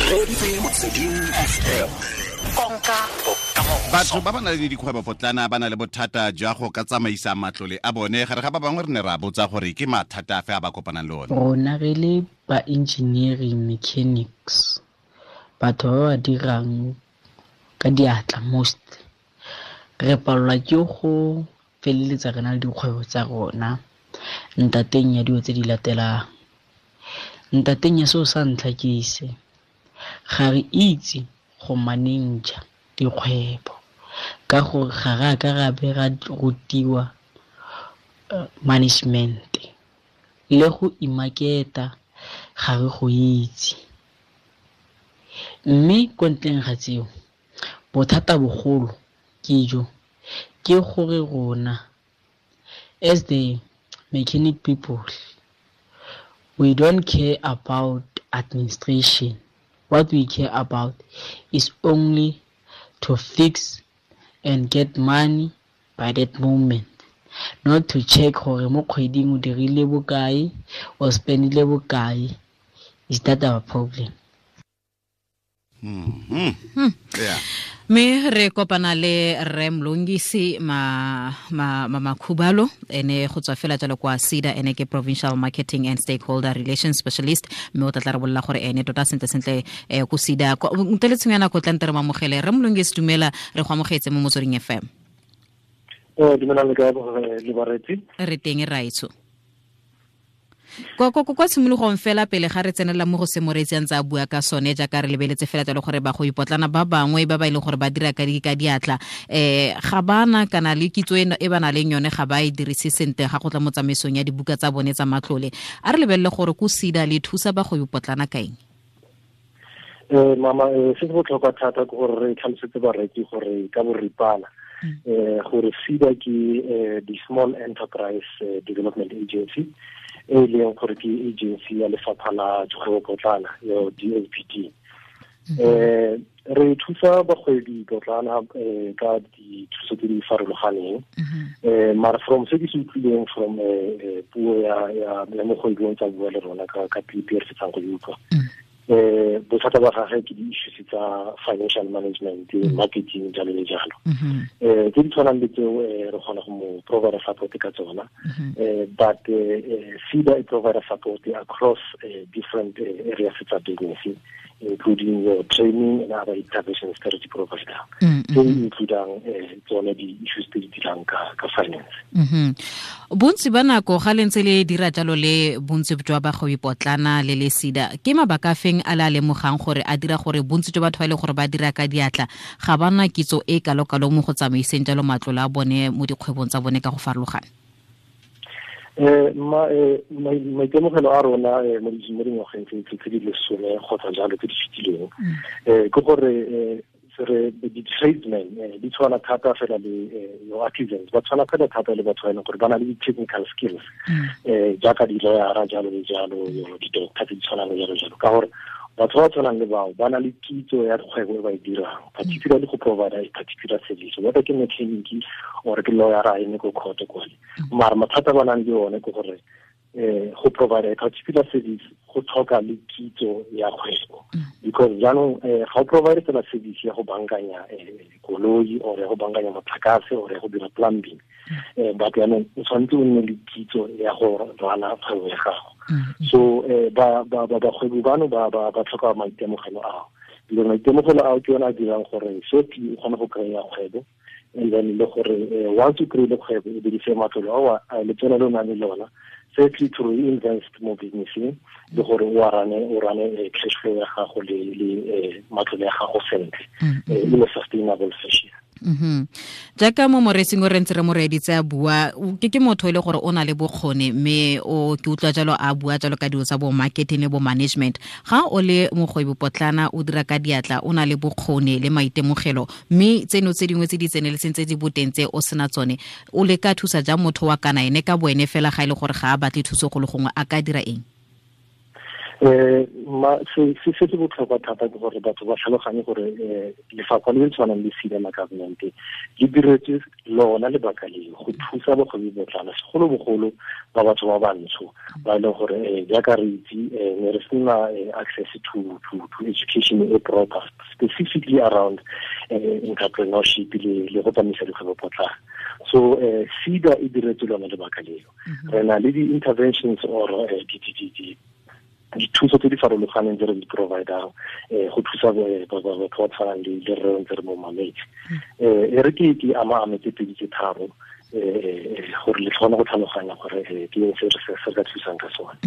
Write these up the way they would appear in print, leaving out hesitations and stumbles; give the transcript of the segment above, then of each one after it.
Motsweding FM, konka bokamoso. Batho ba ba nang le dikgwebo potlana ba na le bothata jwa go ka tsamaisa matlole a bone. Gare ga ba bangwe re ne ra botsa gore ke mathata afe a ba kopanang le one. Rona re le ba engineering mechanics, batho ba ba dirang ka diatla most, re palelwa ke go feleletsa re na le dikgwebo tsa rona ntateng ya dilo tse di latelang. Ntateng ya seo sa ntlha ke se, ga re itse go manager dikgwebo ka gore ga re a ka ra be ra rutiwa management, le go imaketa ga re go itse. Mme ko ntleng ga tseo, bothata bogolo ke jo, ke gore rona as the mechanic people, we don't care about administration. What we care about is only to fix and get money by that moment, not to check gore mo kgweding o dirile bokae or spendile bokae. Is that our problem? Yeah. Mme re kopana le Rre Mlungisi Makhubalo, ene go tswa fela jalo kwa SEDA, ene ke Provincial Marketing and Stakeholder Relations Specialist, mme o tla tla re bolela gore ene tota sentle sentle ko SEDA. Ntle le tshenyo ya nako, tla nte re mo amogele. Rre Mlungisi, dumela, re go amogetse mo Motsweding FM. Dumelang le kae, le baretsi? Re teng, raetsho. Kwa tshimologong fela pele ga re tsenela mo go se moreetsi a ntse a bua ka sone, jaaka re lebeletse fela jalo gore ba go ipotlana ba bangwe ba ba e leng gore ba dira ka diatla, ga bana kana le kitso e ba nang le yone ga ba e dirise sentle ga go tla mo tsamaisong ya dibuka tsa bone tsa matlole. A re lebelele gore ko SEDA le thusa ba go ipotlana ka eng? Mama, se se botlhokwa thata ke gore re tlhalosetse bareki gore ka boripana, gore SEDA ke the Small Enterprise Development Agency, e leng gore ke agency ya lefapha la dikgwebo potlana, yo DSPD. Re thusa bagwebi potlana ka dithuso tse di farologaneng. Mara from se ke se utlwileng from puo ya mogwebi o ntse a bua le rona ka clip e re fetsang go e utlwa. Bothata ba gagwe ke di-issues tsa financial management, marketing, jalo le jalo. Tse di tshwanang le tseo, re kgona go mo provide support ka tsona. But SEDA e provide support across different areas tsa business, including your training and other intervention strategy provider. Tse di includang tsone di-issues tse di dirang ka finance. Bontsi ba nako ga le ntse le dira jalo le bontsi jwa bagwebi potlana le le SEDA, ke mabaka a feng a le a lemogang gore a dira gore bontsi jwa batho ba e leng gore ba dira ka diatla ga ba na kitso e kalo-kalo mo go tsamaiseng jalo matlole a bone mo dikgwebong tsa bone ka go farologana? Ma, maitemogelo a rona mo dingwageng tse di lesome kgotsa jalo tse di fetileng, ke gore re di-tradesmen di tshwana thata fela le your artisans, ba tshwana fela thata le batho ba e leng gore ba na le di-technical skills, jaaka di-lawyera jalo le jalo, di-doctor tse di tshwanang le jalo jalo, ka gore batho ba tshwanang le bao ba na le kitso ya kgwebo e ba e dirang, particularly go provide a particular service, whether ke mechanic or ke lawyer a eme ko court kwale. Mara mathata ba nang le one ke gore go provide a particular service go tlhoka le kitso ya kgwebo, because jaanong ga o provide fela service ya go bankanya koloi or ya go bankanya motlakase or ya go dira plumbing, but jaanong o tshwanetse o nne le kitso ya go rana kgwebo ya gago. So bagwebi bano ba tlhoka maitemogelo ao, because maitemogelo ao ke yone a dirang gore shortly o kgone go kry-a kgwebo, and then le gore once o kry-ile kgwebo o dirise matlole ao a letseno le o nang le lona firstly to reinvest mo businesseng, le gore o rane cash flow ya gago le matlole ya gago sentle in a sustainable fashion. Jaaka mo moreetsing o re ntse re mo reeditse a bua, ke motho e le gore o na le bokgoni, mme o ke utlwa jalo a bua jalo ka dilo tsa bo marketing le bo management. Ga o le mogwebi potlana o dira ka diatla, o na le bokgoni le maitemogelo, mme tseno tse dingwe tse di tseneletseng tse di boteng tse o sena tsone, o le ka thusa jang motho wa kana ene ka boene fela ga e le gore ga a batle thuso go le gongwe, a ka dira eng? Ma se se se botlhokwa thata ke gore batho ba tlhaloganye gore lefapha le le tshwanang le SEDA la government le diretswe lona lebaka leo go thusa bagwebi botlana segolobogolo ba batho ba bantsho ba e leng gore jaaka re itse ne re sena access to education e proper specifically around entrepreneurship le go tsamaisa dikgwebo potlana. So SEDA e diretswe lona lebaka leo. Re na le di-interventions or dithuso tse di farologaneng tse re di providang go thusa batho ba tshwanang le rre ntse re mo mametse. E re ke ama ame tse pedi tse tharo gore le tlhone go tlhaloganya gore ke eng se re ka thusang ka sone.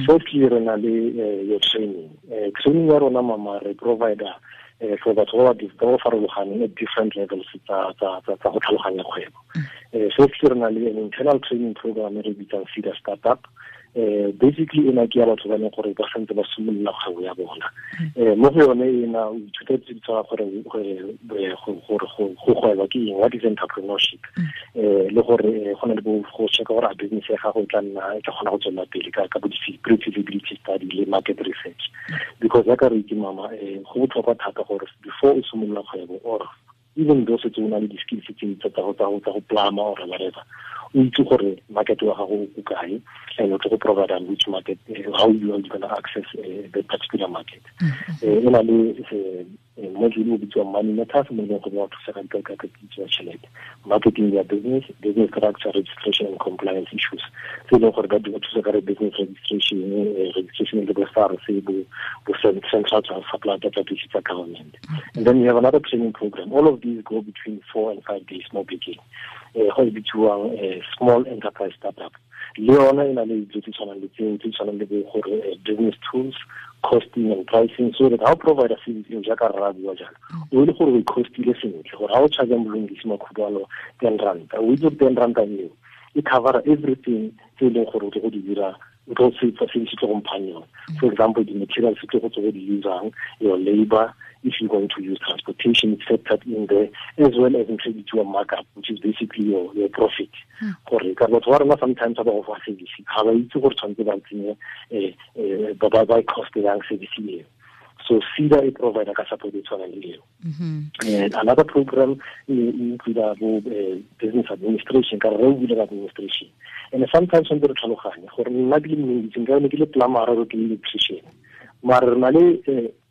Firstly, re na le your training. Training ya rona mama re provider for batho ba ba farologaneng at different levels tsa go tlhaloganya kgwebo. Firstly, re na le an internal training program e re bitsang SEDA Startup. Basically ena ke ya batho ba leng gore ba santse ba simolola kgwebo ya bona. Mo go yone ena o ithuta tse di tshwana gore go gweba ke eng, what is entrepreneurship, le gore go na le go checka gore a business ya gago e tla nna e tla kgona go tswelela pele ka bo pre-feasibility study le market research. Because jaaka re itse mama, go botlhokwa thata gore before o simolola kgwebo or even though setse o na le di-skills tse tsa go plama or whatever, o itse gore market wa gago o kae and o tlo go provide which market, how you are going to access the particular market. E na le module o bitswang Money Matters, mo e leng gore wa thusa ka kitso ya tšhelete, marketing ya business, business structure, registration and compliance issues tse e leng gore ba thusa ka re business registration, registration le bo SARS, bo central supply database tsa government. And then we have another training program. All of these go between 4 and 5 days mo bekeng. Go e bitsiwang small enterprise startup. Le yona e na le dilo tse tshwanang le tseo, tse tshwanang le bo gore business tools, costing and pricing, so that how provide a service eo jaaka rra bua jalo, o le gore o e costile sentle gore ha o charge Mlungisi Makhubalo 10 rand, o itse 10 rand eo e cover everything tse e leng gore o tlo go di dira, o tlo se service tlo go mphang yone. For example, di-materials tse go tlo go di usang, your labor, if you're going to use transportation, it's factored in there, as well as included your markup, which is basically your profit. Gore ka batho ba rona sometimes ba go fa service, ga ba itse gore tshwanetse ba tsenye ba ba cost yang service eo. So SEDA e provide ka support e tshwanang le eo. And another program include bo business administration, ka re o bile administration. And sometimes tshwanetse re tlhaloganye gore nna ke le Mlungisi, nka ne ke le plumber or ke le electrician, mare re na le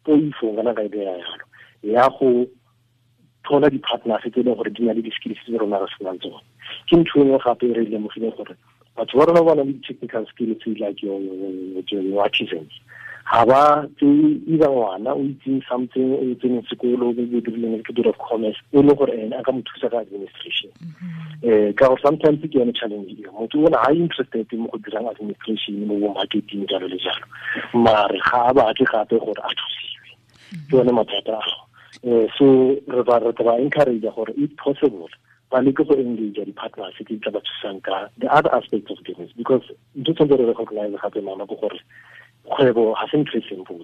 poifo ngana ka idea yalo ya go thola di-partners tse e leng gore di na le di-skills tse rona re senang tsone. Ke ntho e nngwe gape e re lemogileng gore batho ba rona ba na le di-technical skills like your artisans. Ga ba tseye either ngwana o itseng something, o tseneng sekolo, maybe o dirileng a little bit of commerce, e leng gore ene a ka mo thusa ka administration. Ka gore sometimes ke yone challenge eo, motho o na ga interested mo go dirang administration mo bo marketing jalo le jalo, mare ga a batle gape gore a thusiwe. Ke yone mathata ao. So re ba encourage gore if possible ba leke go engage di-partners tse di tla ba thusang ka the other aspects of business, because ntho tshwanetse re recognize gape mama ke gore kgwebo ga se ntho e simple.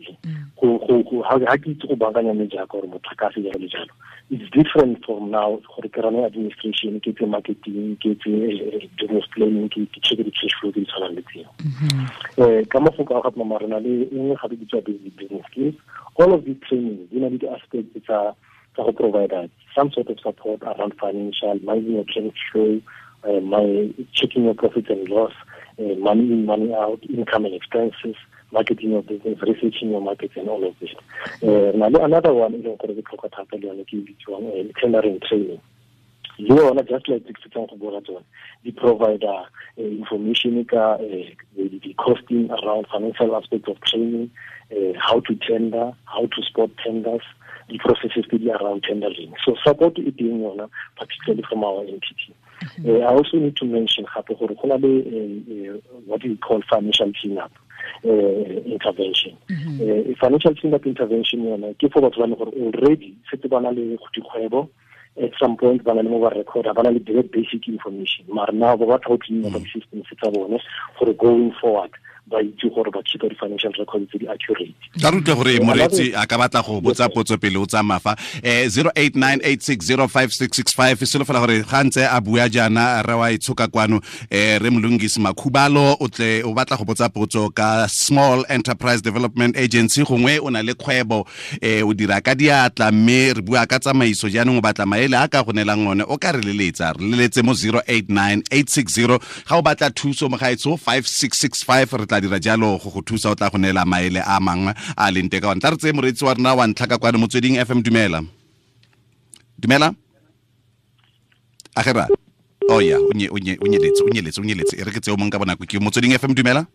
Ga ke itse go baakanya mejaka gore motlakase jalo le jalo. It's different from now gore ke rane administration, ke tse marketing, ke tse business planning, ke check di-cash flow tse di tshwanang le tseo. Ka mafoko a gape mama re na le e nngwe gape bitswa basic business skills. All of these trainings di na le di-aspects tsa go provide some sort of support around financial, managing your cash flow, checking your profit and loss, money in, money out, income and expenses, marketing your business, researching your markets, and all of this. Another one is tendering training. Le yona just like the provider information the costing around financial aspects of training, how to tender, how to spot tenders, the processes to be around tendering. So support it being yona, particularly from our entity. I also need to mention what we call financial cleanup intervention. Financial cleanup intervention yona ke for batho ba leng gore already setse ba na le dikgwebo, at some point ba na le mo ba recorda, ba na le direct basic information, mara now ba batla go clean up systems tsa bone gore going forward ba itse gore ba keep di-financial records tse di accurate. Ka re utlwe gore moreetsi a ka batla go botsa potso pele o tsamaya fa 0898605665. Solofela gore ga ntse a bua jaana re wa itshoka kwano, re Mlungisi Makhubalo o tle o batla go botsa potso ka Small Enterprise Development Agency, gongwe o na le kgwebo, o dira ka diatla, mme re bua ka tsamaiso jaanong o batla maele a ka go neelang one, o ka re leletsa, re leletse mo 089860. Ga o batla thuso mogaetsho 5665, re tla dira jalo go go thusa, o tla go neela maele a mangwe a leng teng ka one. Tla re tseye moreetsi wa rona wa ntlha ka kwano Motsweding FM. Dumela. Dumela. Agera. Oh ya, o nyeletse, o nyeletse, o nyeletse. E re ke tseo mong ka bonako ke Motsweding FM. Dumela.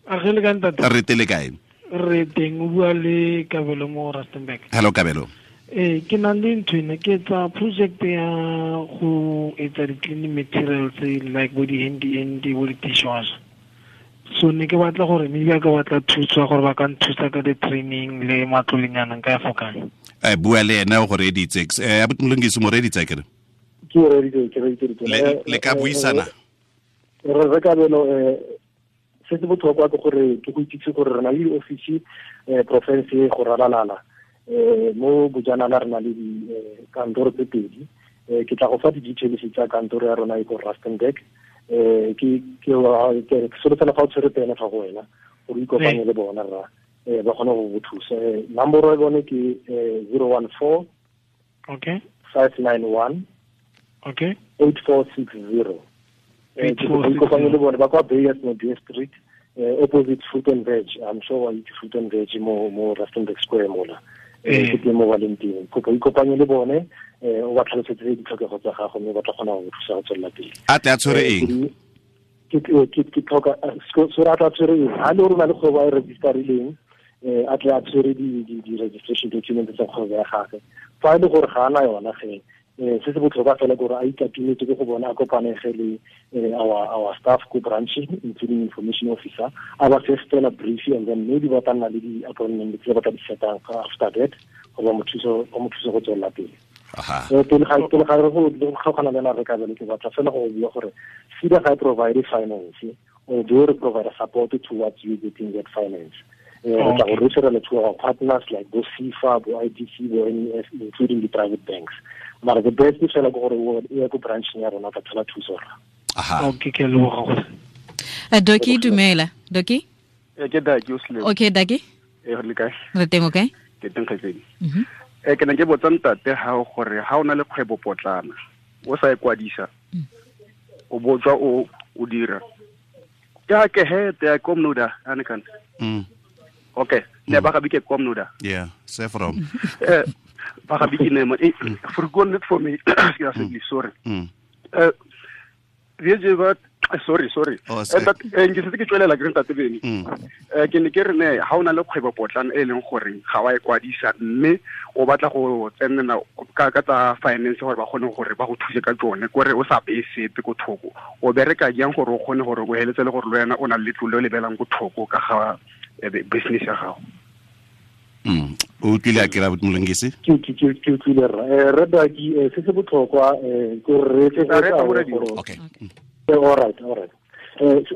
Agele ka ntate. Re tele kae? Re teng, o bua le Kabelo mo Rustenburg. Hello Kabelo. Ke na le ntho ena, ke etsa project ya go etsa di-cleaning materials like bo di-handy bo di-dishwasher. So ne ke batla gore maybe a ka batla thuso gore ba ka nthusa ka di-training le matlolenyana nka ya fokang. Bua le ena o go reeditse. Abuti Mlungisi, mo reeditse akere? Ke o reeditse, ke reeditse. Le ka buisana? Re Kabelo, se se botlhokwa ke gore ke go itsise gore re na le di-office province go ralalala. Mo Bojanala re na le dikantoro tse pedi. Ke tla go fa di-details tsa kantoro ya rona e ko Rustenburg. Ke solofela fa o tshwere pene fa go wena gore o ikopanye le bona rra, ba kgone go go thusa. Nomoro ya bone ke 014 okay 591 okay 8460. Ke ikopanye le bone ba kwa Bayers Modie Street, opposite Fruit and Veg. I'm sure wa itse Fruit and Veg mo Rustenburg Square mola. Ke teng mo ba leng teng. Kopo ikopanye le bone, o ba tlhalosetse ditlhokego tsa gago mme ba tla kgona go thusa go tswelela pele. A tle a tshwere eng? Ke tlhoka so a tla tshwere eng? Ha le gore o na le kgwebo a e registerileng, a tle a tshwere di-registration documents tsa kgwebo ya gagwe. Fa e le gore ga ana yona ge, se se botlhokwa fela ke gore a ikatumetse ke go bona, a kopanege le our staff ko branch, including information officer, a ba fe fela brief, and then maybe ba tla nna le di-appointment tse ba tla di setang after that gore ba mo thuse go tswelela pele. Pele ga re go kgaogana le ena re Kabelo, ke batla fela go bua gore SEDA ga e provide finance, although re provide support towards you getting that finance. Re tla go referela to our partners like bo SEFA, bo IDC, bo NEF, including the private banks. Mara the best fela ke gore o ye ko brancheng ya rona ka thola thuso rra. Okay, ke leboga gore. Doki, dumela. Doki? Ke Daki o sele. Okay, Daki. Re le kae? Re teng, okay? Ke teng kgaitsedi. Ke ne ke botsa ntate ha gore ha o na le kgwebo potlana o sa e kwadisa, o botswa o dira. Ya ke he te komnuda anikan. Okay, ne ba ga bike komnuda. Yeah, se from. Ba ga bike ne mo forgotten it for me. Sorry. Sorry. Ke setse ke tswelela ke re ntate Beni. Ke ne ke re ne ha o na le kgwebo potlana e leng gore ga wa e kwadisa mme o batla go tsenela ka tsa finance gore ba kgone gore ba go thuse ka tsone, kore o sa beye sepe ko thoko, o bereka jang gore o kgone gore o heletse le gore le wena o na le letlole le belang ko thoko ka ga business ya gago? O utlwile a kera Mlungisi? Ke utlwile rra. Rre Daki, se se botlhokwa ke gore re etse Okay. All right.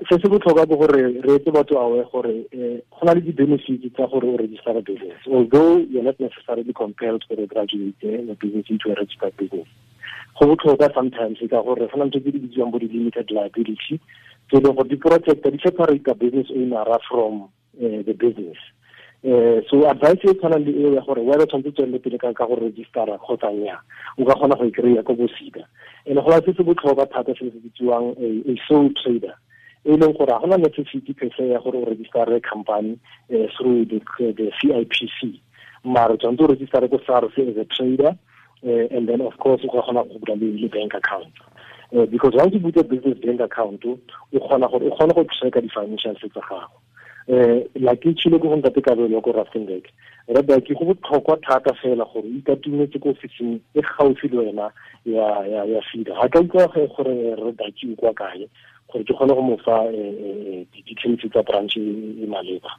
Se se botlhokwa ke gore re etse batho aware gore go na le di-benefits tsa gore o register a business, although you're not necessarily compelled to graduate a business into a registered business. Go botlhokwa sometimes ka gore go na le tse di bitsiwang bo di-limited liability tse e leng gore di protecta, di separate business owner from the business. So advice e tshwanang le eo ya gore whether tshwanetse tswelele pele ka go registera kgotsa nnyaa, o ka kgona go e kry-a ko bo SEDA. And go se se botlhokwa thata se se bitsiwang a sole trader, e leng gore ga gona necessity per se ya gore o registere company through the CIPC, mara tshwanetse o registere ko SARS as a trader, and then of course o ka kgona go bula le bank account. Because once you put a business bank account, o kgona gore o kgone go tracka di-financials tsa gago. Like ke tshile go ntate Kabelo ko Rustenburg, re Daki, go botlhokwa thata fela gore o ikatumetse ko ofising e gaufi le wena ya SEDA. Ga ka utlwa gore re Daki o kwa kae gore ke kgone go mo fa di-details tsa branch e maleba.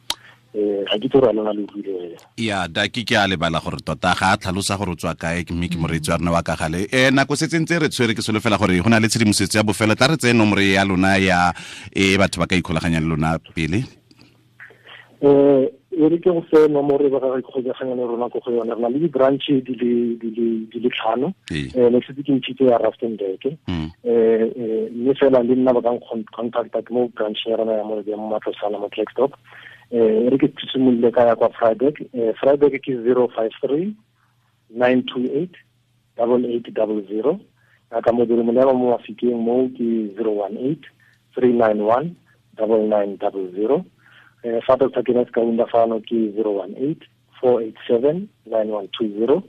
Ga ke tse gore a lona le utlwile. Ya Daki, ke a lebala gore tota ga a tlhalosa gore o tswa kae, mme ke moreetsi wa rona wa ka gale. Nako setse ntse re tshwere, ke solofela gore go na le tshedimosetso ya bofelo. Tla re tseye nomoro ya lona ya e batho ba ka ikgolaganyang le lona pele. E re ke go fe nomoro e ba ka ikgokaganya le rona ko go yone. Re na le di-branch di le 5. Ne setse ke ntshitse ya Rustenburg. Mme fela le nna ba ka contacta ke mo branch ya rona ya mo Matlosana mo Klerksdorp. E re ke simolole ka ya kwa Vryburg. Vryburg ke 053 928 8800. Ka modiri molema mo Mafikeng mo ke 018 391 9900. Fa Dr. Kenneth Kaunda fano ke 018 487 9120.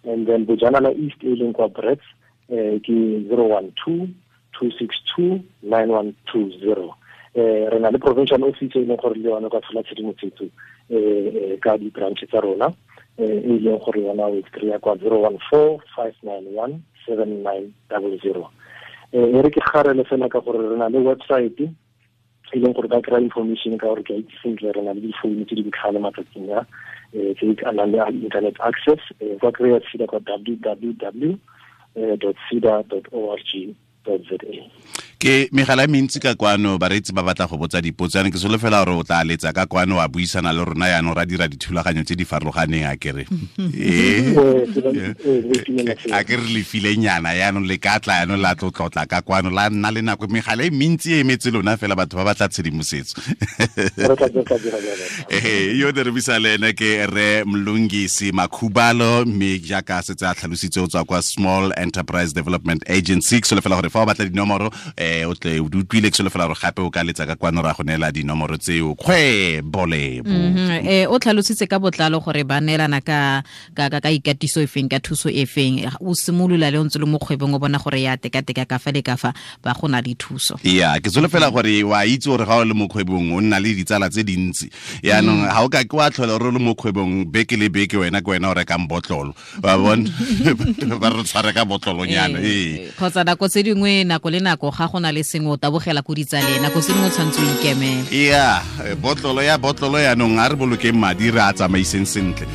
And then Bojanala East e leng kwa Brits ke 012 262 9120. Re na le provincial office e leng gore le yone ka tshola tshedimosetso ka di-branch tsa rona, e leng gore yona o kry-a kwa 014 591 7900. E re ke garele fela ka gore re na le website e leng gore ba kry-a information ka gore ke a itse sentle re na le difounu tse di botlhale matsatsing a tse di nang le internet access. Ba kry-a SEDA kwa www.seda.org.za. Ke megala e mentsi ka kwano, bareetsi ba batla go botsa dipotso. Yana ke solofela gore o tla letsa ka kwano wa buisana le rona yaanong ra dira dithulaganyo tse di farologaneng a kere. A ke re lefilenyana yaanong le ka tla yaanong la tlotlotla ka kwano la nna le nako. Megala e mentsi e emetse lona fela batho ba batla tshedimosetso. Yo ne re buisa le ene ke Rre Mlungisi Makhubalo, mme jaaka setse a tlhalositse o tswa kwa Small Enterprise Development Agency. Ke solofela gore fa o batla dinomoro o tle o utlwile, ke solofela gore gape o ka letsa ka kwano ra go neela dinomoro tseo. Kgwebo Lebo. O tlhalositse ka botlalo gore ba neelana ka ikatiso e feng, ka thuso e feng. O simolola le o ntse le mo kgwebong o bona gore ya tekateka ka fa le ka fa ba go na le thuso. Ya, ke solofela gore wa itse gore ga o le mo kgwebong o nna le ditsala tse dintsi. Yaanong ga o ka ke wa tlhola o le mo kgwebong beke le beke wena ke wena o rekang botlolo. Wa bona ba re tshware ka botlolonyana. Kgotsa nako tse dingwe nako le nako ga go na le sengwe o tabogela ko ditsaleng, nako se dingwe o tshwanetse o ikemele. Ya, botlolo ya yaanong a re bolokeng madi re a tsamaiseng sentle.